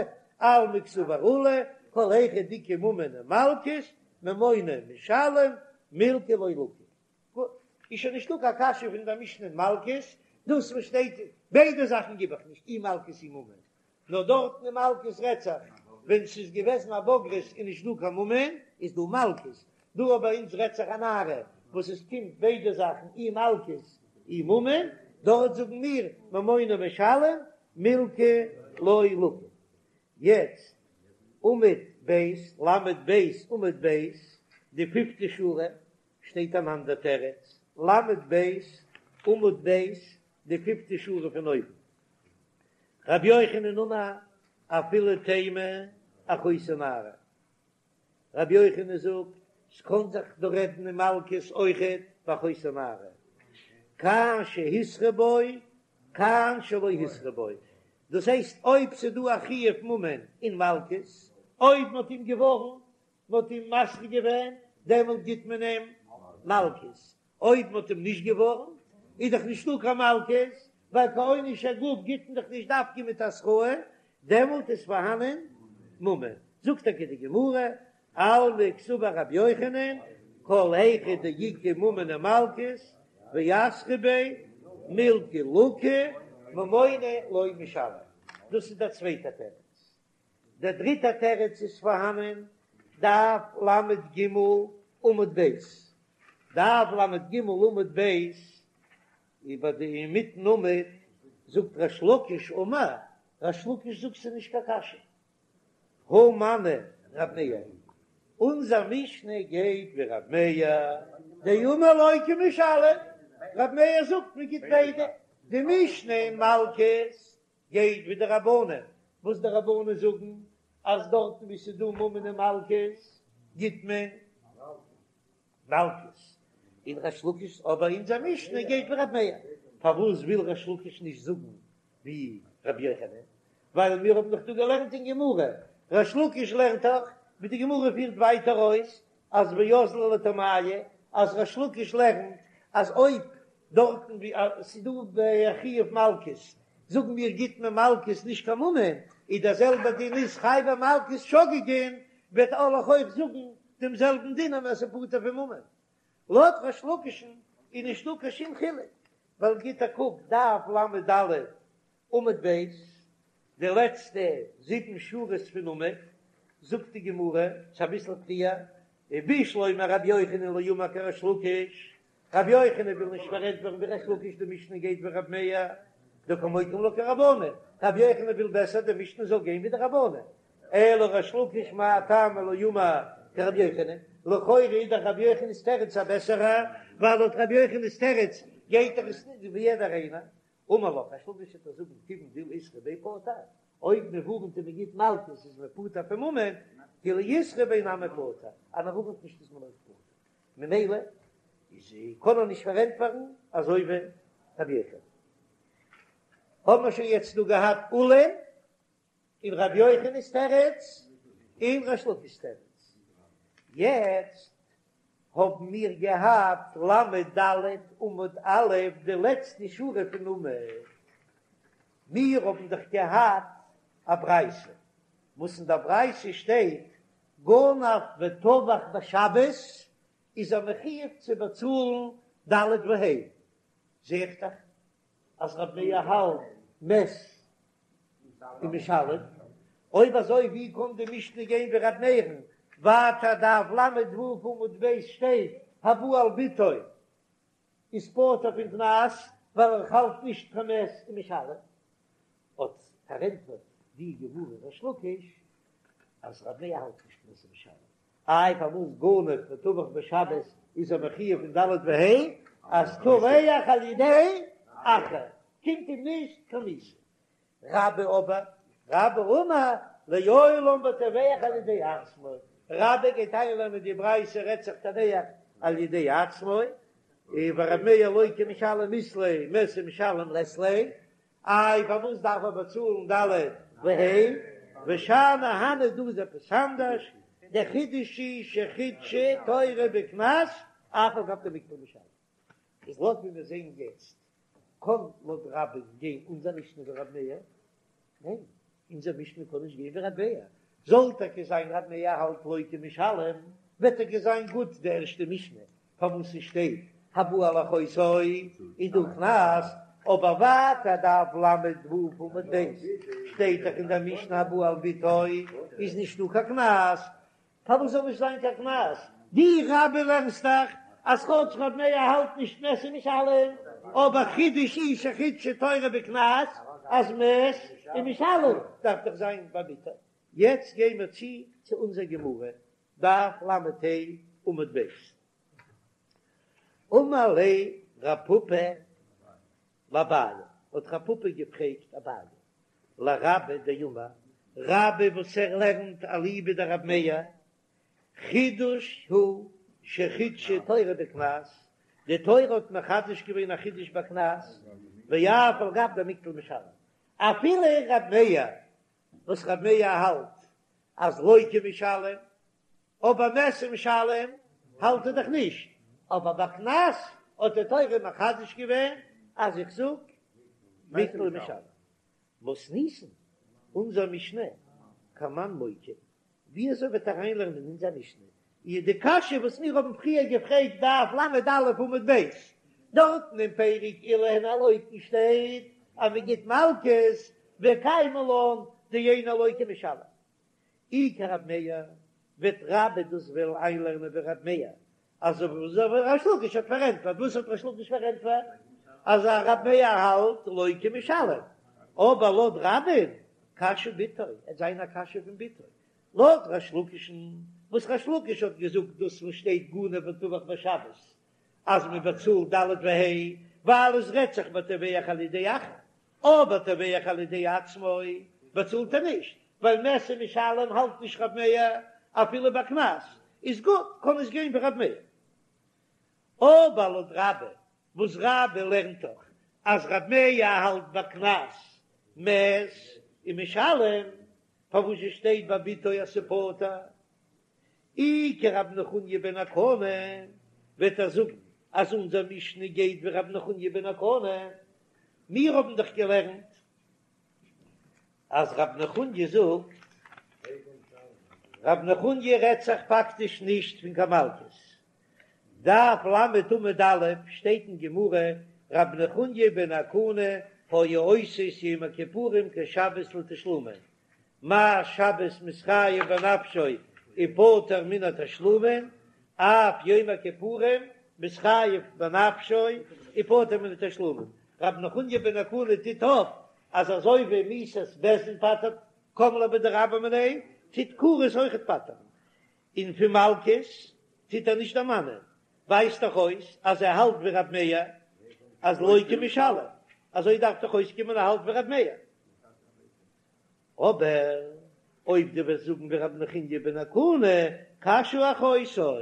אלמא קסבר עולא, כל היכא דאיכא ממון ומלקות, ממונא משלם, מילקא לא לקי. גוט, איז שוין נישטא קיין קשיא פון דער משנה אין מלקות, דאס וואס שטייט ביידע זאכן גיב איך נישט אי מלקות אי ממון, נאר דארטן אין מלקות רעדט זיך ווען ס'איז געוועזן א בוגרת און נישט דא קיין ממון איז דא מלקות, דא אבער ביי אונז רעדט זיך א נערה וואס עס קומט ביידע זאכן אי מלקות אי ממון, דארט זאגן מיר ממונא משלם מילקא לא לקי. יעצט עמוד ב', ל"ב עמוד ב', די פיפטע שורה, שטייט אן אנדער תירוץ, ל"ב עמוד ב', די פיפטע שורה פון אויבן, רבי יוחנן אמר אפילו תימא אחותו נערה, רבי יוחנן זאגט ס'קען זיך דא רעדן אין מלקות אויכעט באחותו נערה, כאן שהתרו בו כאן שלא התרו בו, דאס הייסט אויב ס'דא א חיוב ממון און מלקות, אויב מ'האט אים געווארנט מען האט אים מתרה געווען, דעמאלט גיט מען אים מלקות, אויב מען האט אים נישט געווארנט, איז דאך נישטא קיין מלקות, ווייל קיין עונש הגוף גיט מען דאך נישט דווקא מיט התראה, דעמאלט איז פארהאנען ממון. זאגט טאקע די גמרא, אלמא קסבר רבי יוחנן, כל היכא דאיכא ממון ומלקות, ואתרו ביה, מילקא לקי, ממונא לא משלם. דאס איז דער צווייטער תירוץ. דער דריטער תירוץ איז פארהאנען, דף ל"ג עמוד ב', דף ל"ג עמוד ב', איבער די אינמיטן עמוד זאגט ריש לקיש אמר, ריש לקיש זאגט ס'איז נישט קיין קשיא, הא מני רב מאיר, אונזער משנה גייט ווי רב מאיר, דאמר לוקה ומשלם, רב מאיר זאגט מען גיט ביידע, די משנה אין מלקות גייט ווי די רבנן, וואס די רבנן זאגן אז דארטן ווי ס'איז דא ממון און מלקות גיט מען מלקות, און ריש לקיש, אבער אונזער משנה גייט ווי רב מאיר, פארוואס וויל ריש לקיש נישט זאגן ווי רבי יוחנן? ווייל מיר האבן דאך דא געלערנט אין גמרא, ריש לקיש לערנט דאך ווי די גמרא פירט ווייטער אויס אז ואזדא לטעמייהו, אז ריש לקיש לערנט אז אויב דארטן ווי ס'איז דא א חיוב מלקות, זאגן מיר גיט מען מלקות נישט קיין ממון, איז דער זעלבער דין איז חייבי מלקות שוגגין, וועט וועל איך אויך זאגן דעם זעלבן דין אז ס'איז פטור פון ממון. לויט ריש לקיש'ן איז נישטא קיין שום חילוק, ווייל גיט א קוק דף ל"ד עמוד ב', די לעצטע זיבן שורות פון עמוד, זאגט די גמרא, ס'איז אביסל פריער, ובשלמא רבי יוחנן לא אמר כריש לקיש, רבי יוחנן וויל נישט פארענטפערן ווי ריש לקיש די משנה גייט ווי רבי מאיר, דקא מוקים לה כרבנן, רבי יוחנן וויל בעסער די משנה זאל גיין ווי די רבנן, אלא ריש לקיש מאי טעמא לא אמר כרבי יוחנן, לכאורה איז דאך רבי יוחנן'ס תירוץ א בעסערע, ווייל לויט רבי יוחנן'ס תירוץ גייט דאך עס נישט ווי יעדער איינער. אמר לך, ריש לקיש וועט דיר זאגן כיוון דאילו איתרע ביה פטור, אויב מען ווארנט און מען גיט מלקות איז מען פטור פון ממון, כי לא איתרע ביה נמי פטור, אז מען ווארנט נישט איז מען אויך פטור, ממילא איז קען ער נישט פארענטפערן אזוי ווי רבי יוחנן. האבן מיר שוין יעצט דא געהאט עולא'ן און רבי יוחנן'ס תירוץ און ריש לקיש'ס תירוץ, יעצט האבן מיר געהאט ל"ד עמוד א' די לעצטע שורה פון עמוד, מיר האבן דאך געהאט א ברייתא וואס אין דער ברייתא שטייט גנב וטבח בשבת איז ער מחויב צו באצאלן ד' וה', זע איך דאך אז רב מאיר האלט מת ומשלם, אויב אזוי ווי קען די משנה גיין ווי ר' מאיר'ן, ווייטער דף ל"ו עמוד ב' שטייט הבא על בתו איז פטור פון קנס ווייל ער האלט נישט קיין מת ומשלם, האט פארענטפערט די גמרא ריש לקיש אז ר' מאיר האלט נישט מת ומשלם, איי פארוואס גנב וטבח בשבת איז ער מחויב אין ד' וה' אז טובח על ידי אחר קומט אים נישט קיין מיתה. רבה אבער, רבה אמר לעולם בטובח על ידי עצמו, רבה גייט איינלערנען די ברייתא רעדט זיך טובח על ידי עצמו, ור' מאיר לוקה ומשלם אית ליה מת ומשלם לית ליה, איי פארוואס דארף ער באצאלן ד' וה', ושאני הני דא איז עפעס אנדערש, דער חידוש איז שחידשה תורה בקנס אף על גב דמיקטל ומשלם. איז לויט ווי מיר זעהן יעצט קען לויט רבה'ן גיין אונזער משנה ווי רב מאיר? ניין, אונזער משנה קען נישט גיין ווי רב מאיר. זאל טאקע זיין רב מאיר האלט לוקה ומשלם, וועט טאקע זיין גוט די ערשטע משנה פארוואס ס'שטייט הבא על אחותו איז דא קנס, אבער ווייטער דף ל"ו עמוד ב' שטייט דאך אין דער משנה הבא על בתו איז נישטא קיין קנס, פארוואס זאל נישט זיין קיין קנס? דו רבה לערנסט דאך אז כאטש רב מאיר האלט נישט מת ומשלם, אבער חידוש איז שחידשה תורה בקנס אז מת ומשלם דארף דאך זיין ביי בתו. יעצט גיי מיר צו צו אונזער גמרא, דף ל"ה עמוד ב'. אמר ליה רב פפא לאביי, האט רב פפא געפרעגט אביי, לרבה דאמר, רבה וואס ער לערנט אליבא דרב מאיר, חידוש הוא שחידשה תורה בקנס, די תורה האט מחדש געווען א חידוש בקנס, ואף על גב דמיקטל משלם, אפילו רב מאיר וואס רב מאיר האלט אז לוקה ומשלם, אבער מת ומשלם האלט ער דאך נישט, אבער ביי קנס האט די תורה מחדש געווען אז איך זאג מיקטל ומשלם. מתניתין, אונזער משנה, כמאן מוקי, ווי אזוי וועט ער אריינלערנען אין אונזער משנה איז די קשיא וואס מיר האבן פריער געפרעגט דף ל"א עמוד ב', דארטן אין פרק אלו הן הלוקין שטייט אז מען גיט מלקות וקיימא לן דאינו לוקה ומשלם. אי כרב מאיר, וועט רבה דאס וועלן איינלערנען ווי רב מאיר, אזוי ווי ריש לקיש האט פארענטפערט, וואס האט ריש לקיש פארענטפערט? אז רב מאיר האלט לוקה ומשלם, אבער לויט רבה'ן קשיא בתו, עט זיין א קשיא פון בתו, לויט ריש לקיש'ן, וואס ריש לקיש האט געזאגט דאס וואס שטייט גנב וטבח בשבת, אז מען באצאלט ד' וה', ווייל עס רעדט זיך בטובח על ידי אחר, אבער טובח על ידי עצמו באצאלט ער נישט, ווייל מת ומשלם האלט נישט רב מאיר אפילו ביי קנס, איז גוט, קען עס גיין ווי רב מאיר. אבער לויט רבה, וואס רבה לערנט דאך אז רב מאיר האלט ביי קנס מת ומשלם, פארוואס שטייט ביי בתו אז ס'פטור? אי כרב נחוניא בן הקנה, וועט ער זאגן אז אונזער משנה גייט ווי רב נחוניא בן הקנה, מיר האבן דאך געלערנט אז רב נחוניא זאגט, רב נחוניא רעדט זיך פאקטיש נישט פון קיין מלקות, דף ל' עמוד א' שטייט אין גמרא, רב נחוניא בן הקנה היה עושה את יום הכיפורים כשבת לתשלומין, מה שבת מתחייב בנפשו ופטור מן התשלומין, אף יום הכיפורים מתחייב בנפשו ופטור מן התשלומין. רב נחוניא בן הקנה טוט אויף אז אזוי ווי מיתת בית דין פטר'ט קם ליה בדרבה מיניה, טוט כרת אויכעט פטר'ן, און פון מלקות. טוט ער נישט דערמאנען, ווייזט דאך אויס אז ער האלט ווי רב מאיר אז לוקה ומשלם, אזוי דארף דאך אויסקומען ער האלט ווי רב מאיר. אבער אויב דו וועסט זאגן ווי רבי נחוניא בן הקנה, קשיא אחותו,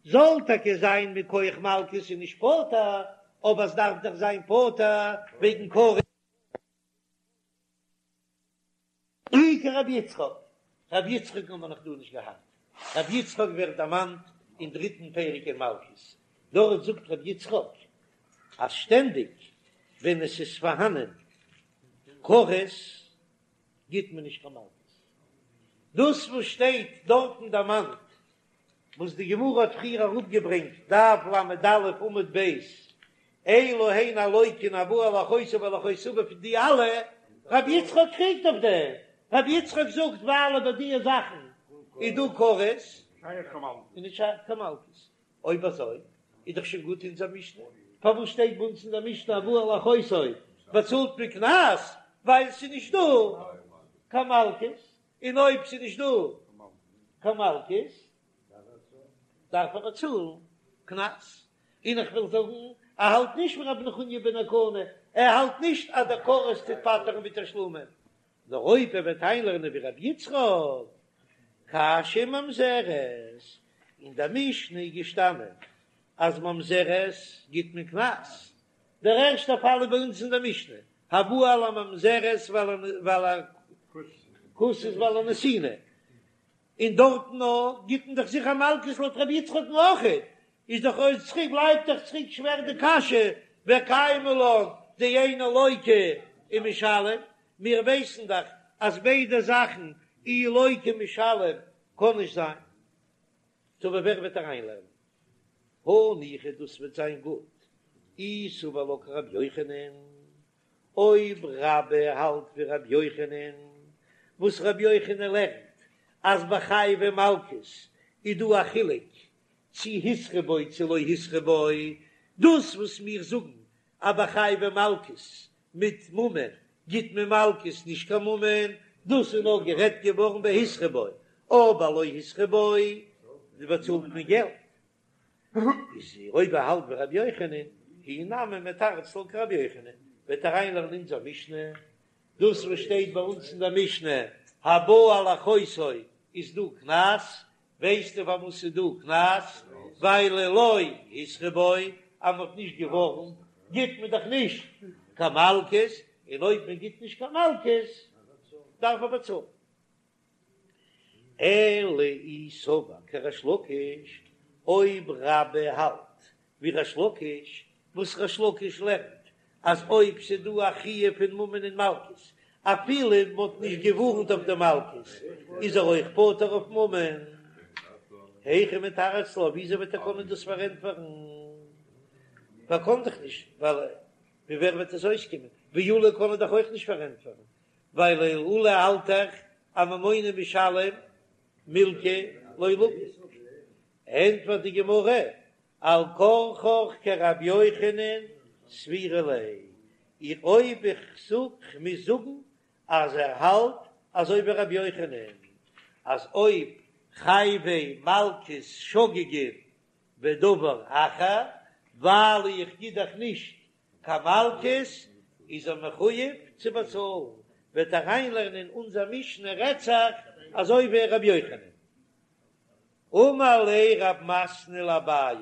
זאל טאקע זיין מכח מלקות איז נישט פטור, אבער עס דארף דאך זיין פטור וועגן כרת. אי כרבי יצחק, רבי יצחק האבן מיר נאך דא נישט געהאט, רבי יצחק ווערט דערמאנט אין דריטן פרק אין מלקות, דארט זאגט רבי יצחק אז שטענדיג ווען עס איז פארהאנען כרת גיט מען נישט קיין מלקות, דאס וואס שטייט דארטן דערמאנט וואס די גמרא האט פריער אראפגעברענגט, דף ל"א עמוד ב', אלו הן הלוקין הבא על אחותו ועל אחות אביו פון די אלע, רבי יצחק קריגט אויף דעם, רבי יצחק זאגט ווייל ביי די זאכן איז דא כרת, איז נישט שייך קיין מלקות, אויב אזוי איז דאך שוין גוט אונזער משנה, פארוואס שטייט ביי אונז אין דער משנה הבא על אחותו באצאלט מען קנס, ווייל ס'איז נישט דא קיין מלקות, און אויב ס'איז נישט דא קיין מלקות דארף ער באצאלן קנס, און איך וויל זאגן ער האלט נישט ווי רבי נחוניא בן הקנה, ער האלט נישט אז דער כרת טוט פטר'ן מתשלומין, נאר אויב ער וועט איינלערנען ווי רבי יצחק, קשיא ממזרת, אין דער משנה איז געשטאנען אז ממזרת גיט מען קנס, דער ערשטער פאל איז ביי אונז אין דער משנה, הבא על הממזרת ועל הכותית ועל הנתינה, און דארטן נאר גיט מען דאך זיכער מלקות לויט רבי יצחק'ן אויכעט, איז דאך אויך צוריק בלייבט דאך צוריק שווער די קשיא וקיימא לן דאינו לוקה ומשלם, מיר ווייסן דאך אז ביידע זאכן אי לוקה ומשלם קען נישט זיין. טא ווער וועט אריינלערנען? הניחא דאס וועט זיין גוט אי סבר לה כרבי יוחנן, אויב רבה האלט ווי רבי יוחנן, וואס רבי יוחנן לערנט אז ביי חייבי מלקות איז דא א חילוק צי התרו בו צי לא התרו בו, דאס וואס מיר זאגן אז ביי חייבי מלקות מיט ממון גיט מען מלקות נישט קיין ממון, דאס איז נאר גערעדט געווארן ביי התרו בו, אבער לא התרו בו באצאלט מען געלט. איז אויב ער האלט ווי רבי יוחנן, הוא נמי מתרץ לה כרבי יוחנן, וועט ער אריינלערנען אונזער משנה, דאס וואס שטייט ביי אונז אין דער משנה הבא על אחותו איז דא קנס, ווייסטו פארוואס ס'איז דא קנס? ווייל לא התרו בו, אז מ'האט נישט געווארנט גיט מען דאך נישט קיין מלקות, און אויב מען גיט נישט קיין מלקות דארף מען באצאלן. אלא אי סבר כריש לקיש, אויב רבה האלט ווי ריש לקיש, וואס ריש לקיש לערנט אז אויב ס'דא א חיוב פון ממון און מלקות, אפילו מ'האט נישט געווארנט אויף די מלקות, איז ער אויך פטור אויף ממון. היכי מתרץ לה, וויאזוי וועט ער קענען דאס פארענטפערן? ער קען דאך נישט, ווייל ווי ווער וועט עס אויסקומען? ווי עולא קען ער דאך אויך נישט פארענטפערן, ווייל עולא האלט דאך אז ממונא משלם מילקא לא לקיט. ענטפערט די גמרא, על כרחך כרבי יוחנן סבירא ליה, איך אויב איך זאג כ'מוז זאגן אז ער האלט אזוי ווי רבי יוחנן אז אויב חייבי מלקות שוגגין ודבר אחר ווייל איך גיב דאך נישט קיין מלקות איז ער מחויב צו באצאלן, וועט אריינלערנען אונזער משנה רעדט זיך אזוי ווי רבי יוחנן. אמר ליה רב מתנה לאביי,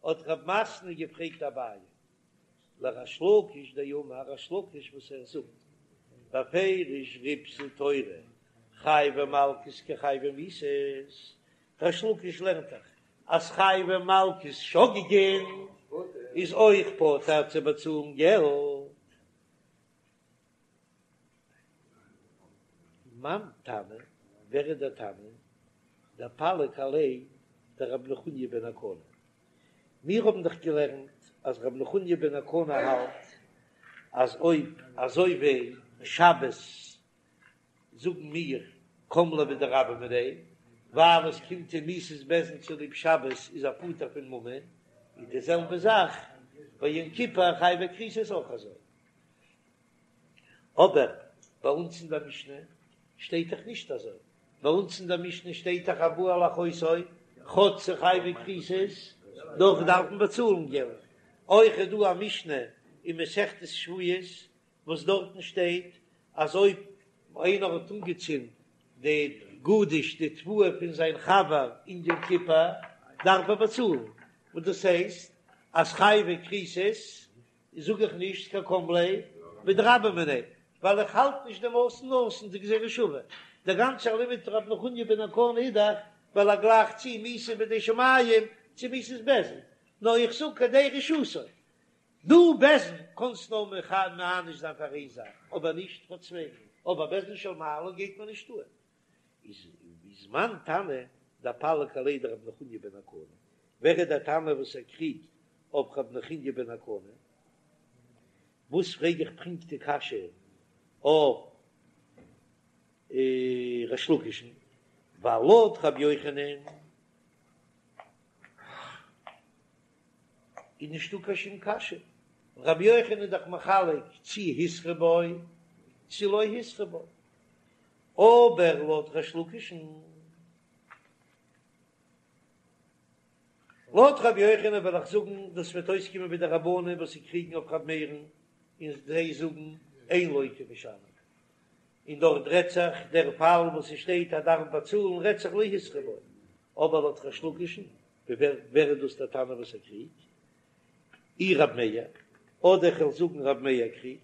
האט רב מתנה געפרעגט אביי, לריש לקיש דאמר ריש לקיש וואס ער זאגט בפירוש ריבתה תורה חייבי מלקות כחייבי מיתות, ריש לקיש לערנט דאך אז חייבי מלקות שוגגין איז אויך פטור צו באצאלן געלט. מאן תנא, ווער איז דער תנא? דפליג עליה דרבי נחוניא בן הקנה. מיר האבן דאך געלערנט אז רבי נחוניא בן הקנה האלט אז אויב אזוי ווי שבת זאגן מיר קם ליה בדרבה מיניה, ווייל עס קומט אים מיתת בית דין צוליב שבת איז ער פטור פון ממון, איז די זעלבע זאך ביי יום כיפור חייבי כריתות אויך אזוי. אבער ביי אונז אין דער משנה שטייט דאך נישט אזוי, ביי אונז אין דער משנה שטייט דאך הבא על אחותו. כאטש ס'איז חייבי כריתות, דאך דארף מען באצאלן געלט. אויך איז דא א משנה אין מסכת שבועות וואס דארטן שטייט אז אויב איינער האט אנגעצינדן די גדיש די תבואה פון זיין חבר אין יום כיפור דארף ער באצאלן, וואס דאס הייסט אז חייבי כריתות זאג איך נישט קיין קם ליה בדרבה מיניה ווייל איך האלט נישט דעם אתון אתון די גזירה שווה, דער גאנצער לימוד פון רבי נחוניא בן הקנה איז דאך ווייל ער גלייכט צו מיתה בידי שמים צו מיתת בית דין, נאר איך זאג כדי רשעותו, דו בית דין קאנסט נאר מעניש זיין פאר איין זאך אבער נישט פאר צוויי, אבער בית דין של מעלה גייט מען נישט אן. איז מאן תנא דפליג עליה דרבי נחוניא בן הקנה, ווער איז דער תנא וואס ער קריגט אויף רבי נחוניא בן הקנה? וואס פרעג איך פונקט די קשיא אויף ריש לקיש'ן, ווייל לויט רבי יוחנן איז נישטא קיין שום קשיא, רבי יוחנן איז דאך מחלק צי התרו בו צי לא התרו בו, אבער לויט ריש לקיש'ן, לויט רבי יוחנן וועל איך זאגן דאס וועט אויסקומען ווי די רבנן וואס זיי קריגן אויף רבי מאיר'ן און זיי זאגן אין לוקה ומשלם, און דארט רעדט זיך דער פאל וואס עס שטייט אז דארף באצאלן רעדט זיך לא התרו בו, אבער לויט ריש לקיש'ן ווער ווער איז דאס דער תנא וואס ער קריגט? אי רב מאיר, אדער איך וועל זאגן רב מאיר קריגט,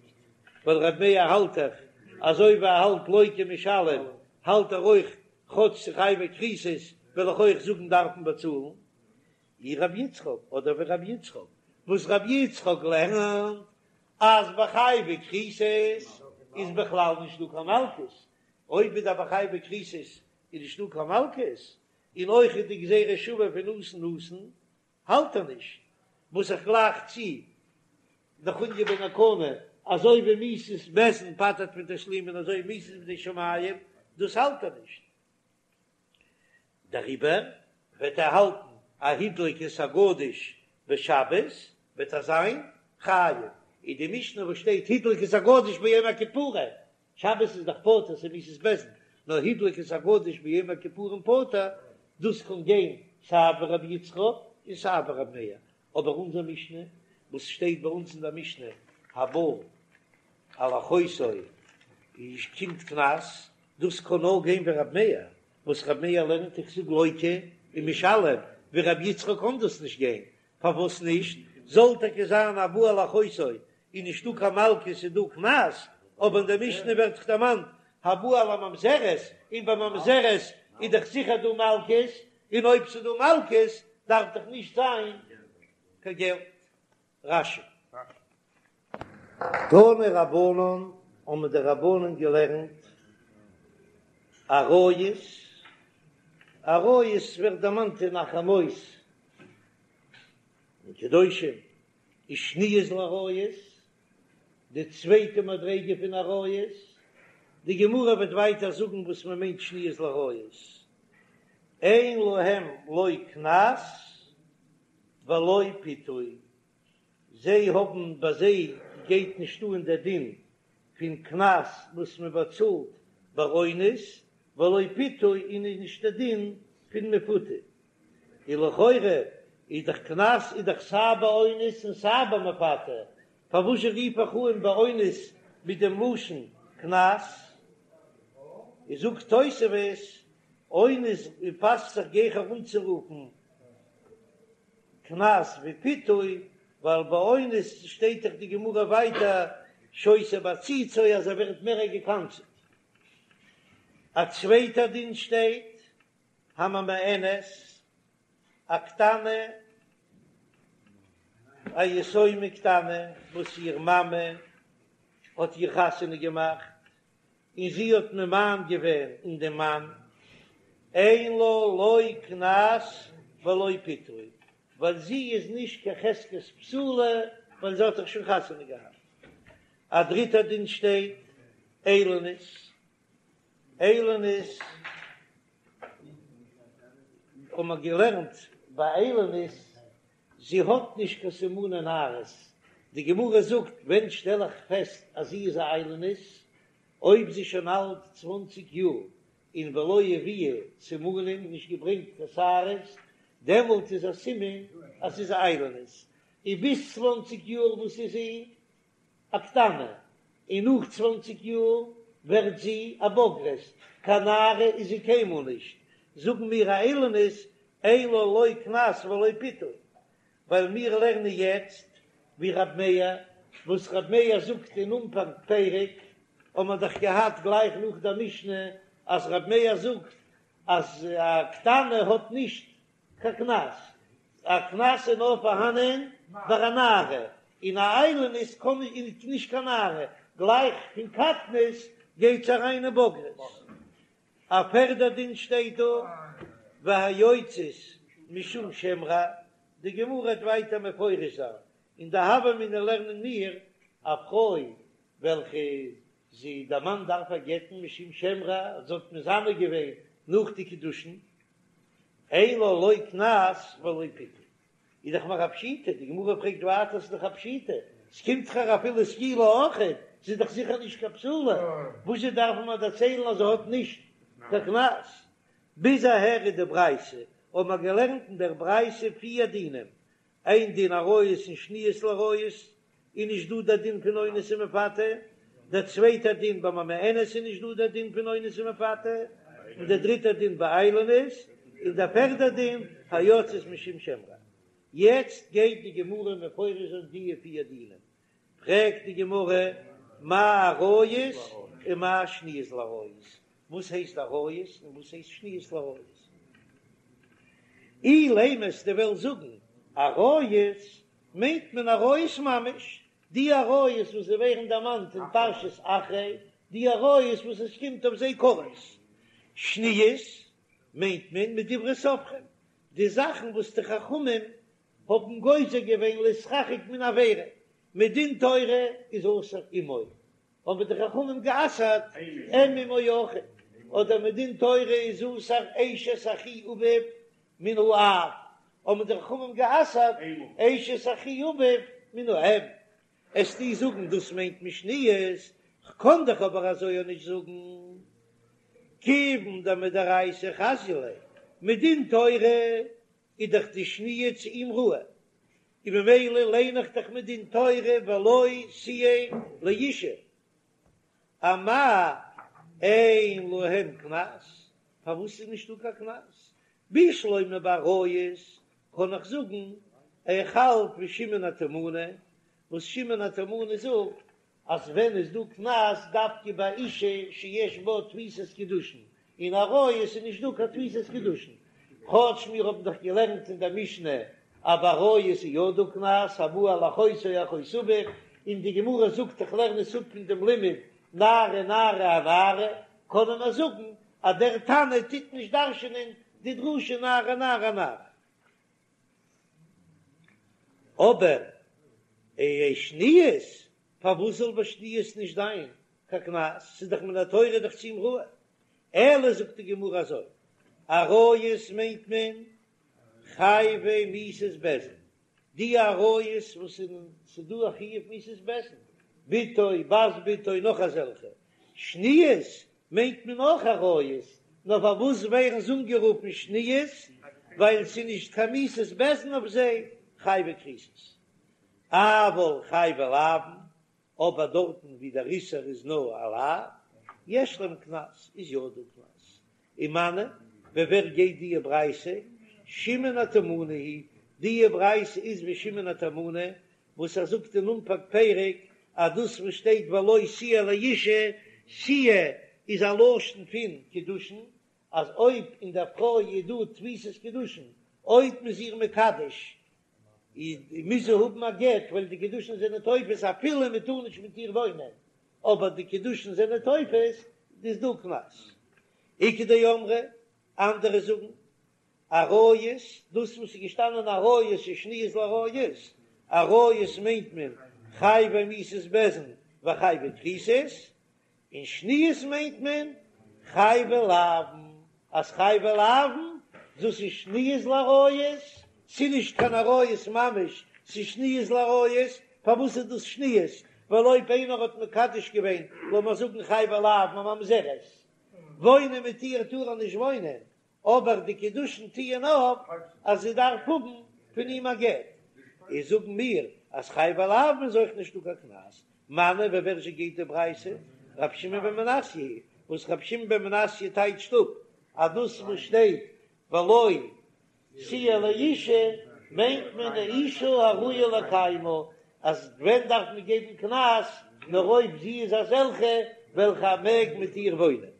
ווייל רב מאיר האלט דאך אזוי ווי ער האלט לוקה ומשלם האלט ער אויך כאטש ס'איז חייבי כריתות וועל איך אויך זאגן דארף מען באצאלן. אי רב יצחק, אדער ווי רב יצחק, וואס רב יצחק לערנט אז ביי חייבי כריתות איז בכלל נישט דא קיין מלקות, אויב איז דא ביי חייבי כריתות איז נישט דא קיין מלקות, און אויך איז די גזירה שוה פון אתון אתון האלט ער נישט, וואס איך גלייך צו נחוניא בן הקנה, אזוי ווי מיתת בית דין פטר'ט פון תשלומין אזוי מיתת בידי שמים, דאס האלט ער נישט, דעריבער וועט ער האלטן א הדליק את הגדיש בשבת וועט ער זיין חייב, איז די משנה וואס שטייט הדליק את הגדיש ביום הכיפורים שבת איז דאך פטור ס'איז מיתת בית דין, נאר הדליק את הגדיש ביום הכיפורים פטור, דאס קען גיין סיי ווי רבי יצחק און סיי ווי רבי מאיר, אבער אונזער משנה וואס שטייט ביי אונז אין דער משנה הבא על אחותו איז קומט קנס, דאס קען נאר גיין ווי רבי מאיר, וואס רבי מאיר לערנט איך זאג לוקה ומשלם, ווי רבי יצחק קען דאס נישט גיין, פארוואס נישט? זאל טאקע זיין הבא על אחותו איז נישטא קיין מלקות איז דא קנס, אבער אין דער משנה ווערט דאך דערמאנט הבא על הממזרת, און ביי ממזרת איז דאך זיכער דא מלקות, און אויב ס'איז דא מלקות דארף דאך נישט זיין קיין געלט. רש"י. תנו רבנן, האבן די רבנן געלערנט עריות, עריות ווערט דערמאנט אין אחרי מות אין קדושים, ושניות לעריות, די צווייטע מדריגה פון עריות, די גמרא וועט ווייטער זאגן וואס מען מיינט שניות לעריות, אין להם לא קנס ולא פיתוי, זיי האבן ביי זיי גייט נישט אן דער דין פון קנס וואס מען באצאלט ביי אונס, ולא פיתוי און איז נישט דער דין פון מפותה. און לכאורה איז דאך קנס איז דאך סיי ביי אונס און סיי ביי מפתה, פארוואס זשע רוף איך אן ביי אונס מיט דעם לשון קנס? איז זאגט תוספות, אונס פאסט זיך גיכער אנצורופן קנס ווי פיתוי, ווייל ביי אונס שטייט דאך די גמרא ווייטער שותה בעציצו אז ער ווערט מער געקנס'ט. א צווייטע דין שטייט הממאנת, א קטנה, א יתומה קטנה וואס איר מאמע האט איר חתונה געמאכט, און זי האט ממאן געווען אין דעם מאן, אין לה לא קנס ולא פיתוי, ווייל זי איז נישט קיין חזקת בתולה, ווייל זי האט דאך שוין חתונה געהאט. א דריטער דין שטייט, איילונית, איילונית האבן מיר געלערנט ביי איילונית, זי האט נישט קיין סימני נערות, די גמרא זאגט ווען שטעל איך פעסט אז זי איז א איילונית, אויב זי איז שוין אלט צוואנציג יאר און ולא הביאה סימנים, נישט געברענגט קיין שערות, דעמאלט איז א סימן אז ס'איז א איילונית, און ביז צוואנציג יאר וואס איז זי א קטנה, און נאך צוואנציג יאר ווערט זי א בוגרת, קיין נערה איז זי קיינמאל נישט, זאגן מיר א איילונית אין לה לא קנס ולא פיתוי, ווייל מיר לערנען יעצט ווי רב מאיר, וואס רב מאיר זאגט אין אנפאנג פרק, האבן מיר דאך געהאט גלייך נאך דער משנה אז רב מאיר זאגט אז א קטנה האט נישט קיין קנס, א קנס איז נאר פארהאנען ביי א נערה, און א איילונית קען נישט קיין נערה, גלייך פון קטנות גייט זי אריין אין בגרות. א פערדע דין שטייט דא, והיוצאת משום שם רע, די גמרא וועט ווייטער מפרש זיין, אין די הוה אמינא לערנען מיר א פרוי וועלכע זי דער מאן דארף איר גט'ן משום שם רע, זי האט מזנה געווען נאך די קידושין, אין לה לא קנס ולא פיתוי, איז דאך נאך א פשיטא, די גמרא פרעגט ווייטער ס'איז דאך א פשיטא, ס'קומט דאך איר אפילו סקילה אויכעט, זי איז דאך זיכער נישט קיין בתולה, וואזשע דארף מען דערציילן אז זי האט נישט קיין קנס? ביז אהער איז די ברייתא, האבן מיר געלערנט אין דער ברייתא פיר דינים, איין דין עריות און שניות לעריות, איז נישט דא דער דין פון אונס ומפתה, דער צווייטער דין ביי ממאנת איז נישט דא דער דין פון אונס ומפתה, און דער דריטער דין ביי איילונית, און דער פערדער דין היוצאת משום שם רע. יעצט גייט די גמרא מפרש זיין די פיר דינים, פרעגט די גמרא מאי עריות ומאי שניות לעריות, וואס הייסט עריות און וואס הייסט שניות לעריות? אילימא אז דו וועסט זאגן עריות מיינט מען עריות ממש, די עריות וואס זיי ווערן דערמאנט אין פרשת אחרי, די עריות וואס עס קומט אויף זיי כרת. שניות מיינט מען מדברי סופרים, די זאכן וואס די חכמים האבן גוזר געווען להתרחק מן העבירה, מדין תורה איז אסור אמו, האבן די חכמים גע'אסר'ט אם אמו אויכעט, אדער מדין תורה איז אסור אשת אחי אביו מן האב, האבן די חכמים גע'אסר'ט אשת אחי אביו מן האם. וועסטו זאגן דאס מיינט מען שניות, כ'קען דאך אבער אזוי אויך נישט זאגן, כיוון דמדאורייתא חזיא ליה, מדין תורה איז דאך די שניה צו אים ראוי, און ממילא ליין איך דאך מדין תורה ולו תהיה לאשה, אמאי אין להם קנס, פארוואס איז נישטא קיין קנס? בשלמא ביי עריות קען איך זאגן איך האלט ווי שמעון התימני, וואס שמעון התימני זאגט אז ווען איז דא קנס דווקא ביי אישה שיש בה תפיסת קידושין, אין עריות איז נישט דא קיין תפיסת קידושין, כאטש מיר האבן דאך געלערנט אין דער משנה אז ביי עריות איז יא דא קנס, הבא על אחותו או אחות אביו, און די גמרא זאגט איך לערן עס אפ פון דעם לימוד נערה נערה אנערה, קענען מיר זאגן אז דער תנא טוט נישט דרש'ענען די דרשה נערה נערה אנערה. אבער שניות, פארוואס זאל ביי שניות נישט זיין קיין קנס? ס'איז דאך מן התורה דאך צו אים ראוי. אלא זאגט די גמרא אזוי, עריות מיינט מען חייבי מיתות בית דין, די עריות וואס ס'איז דא א חיוב מיתת בית דין, בתו, בת בתו, נאך אזעלכע, שניות מיינט מען אויך עריות, נאר פארוואס ווערן זיי אנגערופן שניות? ווייל ס'איז נישט קיין מיתת בית דין אויף זיי, חייבי כריתות. אבל חייבי לאוין, אבער דארטן ווי דער איסור איז נאר א לאו, יש להם קנס, איז יא דא קנס. ומני, ווי ווער גייט דיע ברייתא? שמעון התימני היא, דיע ברייתא איז ווי שמעון התימני, וואס ער זאגט אין אנפאנג פרק אז דאס וואס שטייט ולו תהיה לאשה, תהיה איז א לשון פון קידושין, אז אויב אין דער פרוי איז דא תפיסת קידושין, אויב מ'איז איר מקדש, מוז זי האבן א גט ווייל די קידושין זענען תופס אפילו מען טאר נישט מיט איר וואוינען, אבער די קידושין זענען תופס, איז דא קנס. איכא דאמרי, אנדערע זאגן, עריות, דאס וואס איז געשטאנען עריות איז שניות לעריות, עריות מיינט מען חייבי מיתות בית דין וחייבי כריתות, און שניות מיינט מען חייבי לאוין, אז חייבי לאוין דאס איז שניות לעריות, ס'איז נישט קיין עריות ממש, ס'איז שניות לעריות, פארוואס איז דאס שניות? ווייל אויב איינער האט מקדש געווען, לאמיר זאגן חייבי לאוין א ממזרת, וואוינען מיט איר טאר ער נישט וואוינען, אבער די קידושין טוען אויף אז זי דארף האבן פון אים א גט, איז זאגן מיר אז חייבי לאוין איז אויך נישטא קיין קנס, מני ווי ווער זשע גייט די ברייתא? רב שמעון בן מנסיא היא, וואס רב שמעון בן מנסיא טייטשט אפ אז דאס וואס שטייט ולו תהיה לאשה מיינט מען די אשה הראויה לקיימה, אז ווען דארף מען געבן קנס, נאר אויב זי איז אזעלכע וועלכע ער מעג מיט איר וואוינען.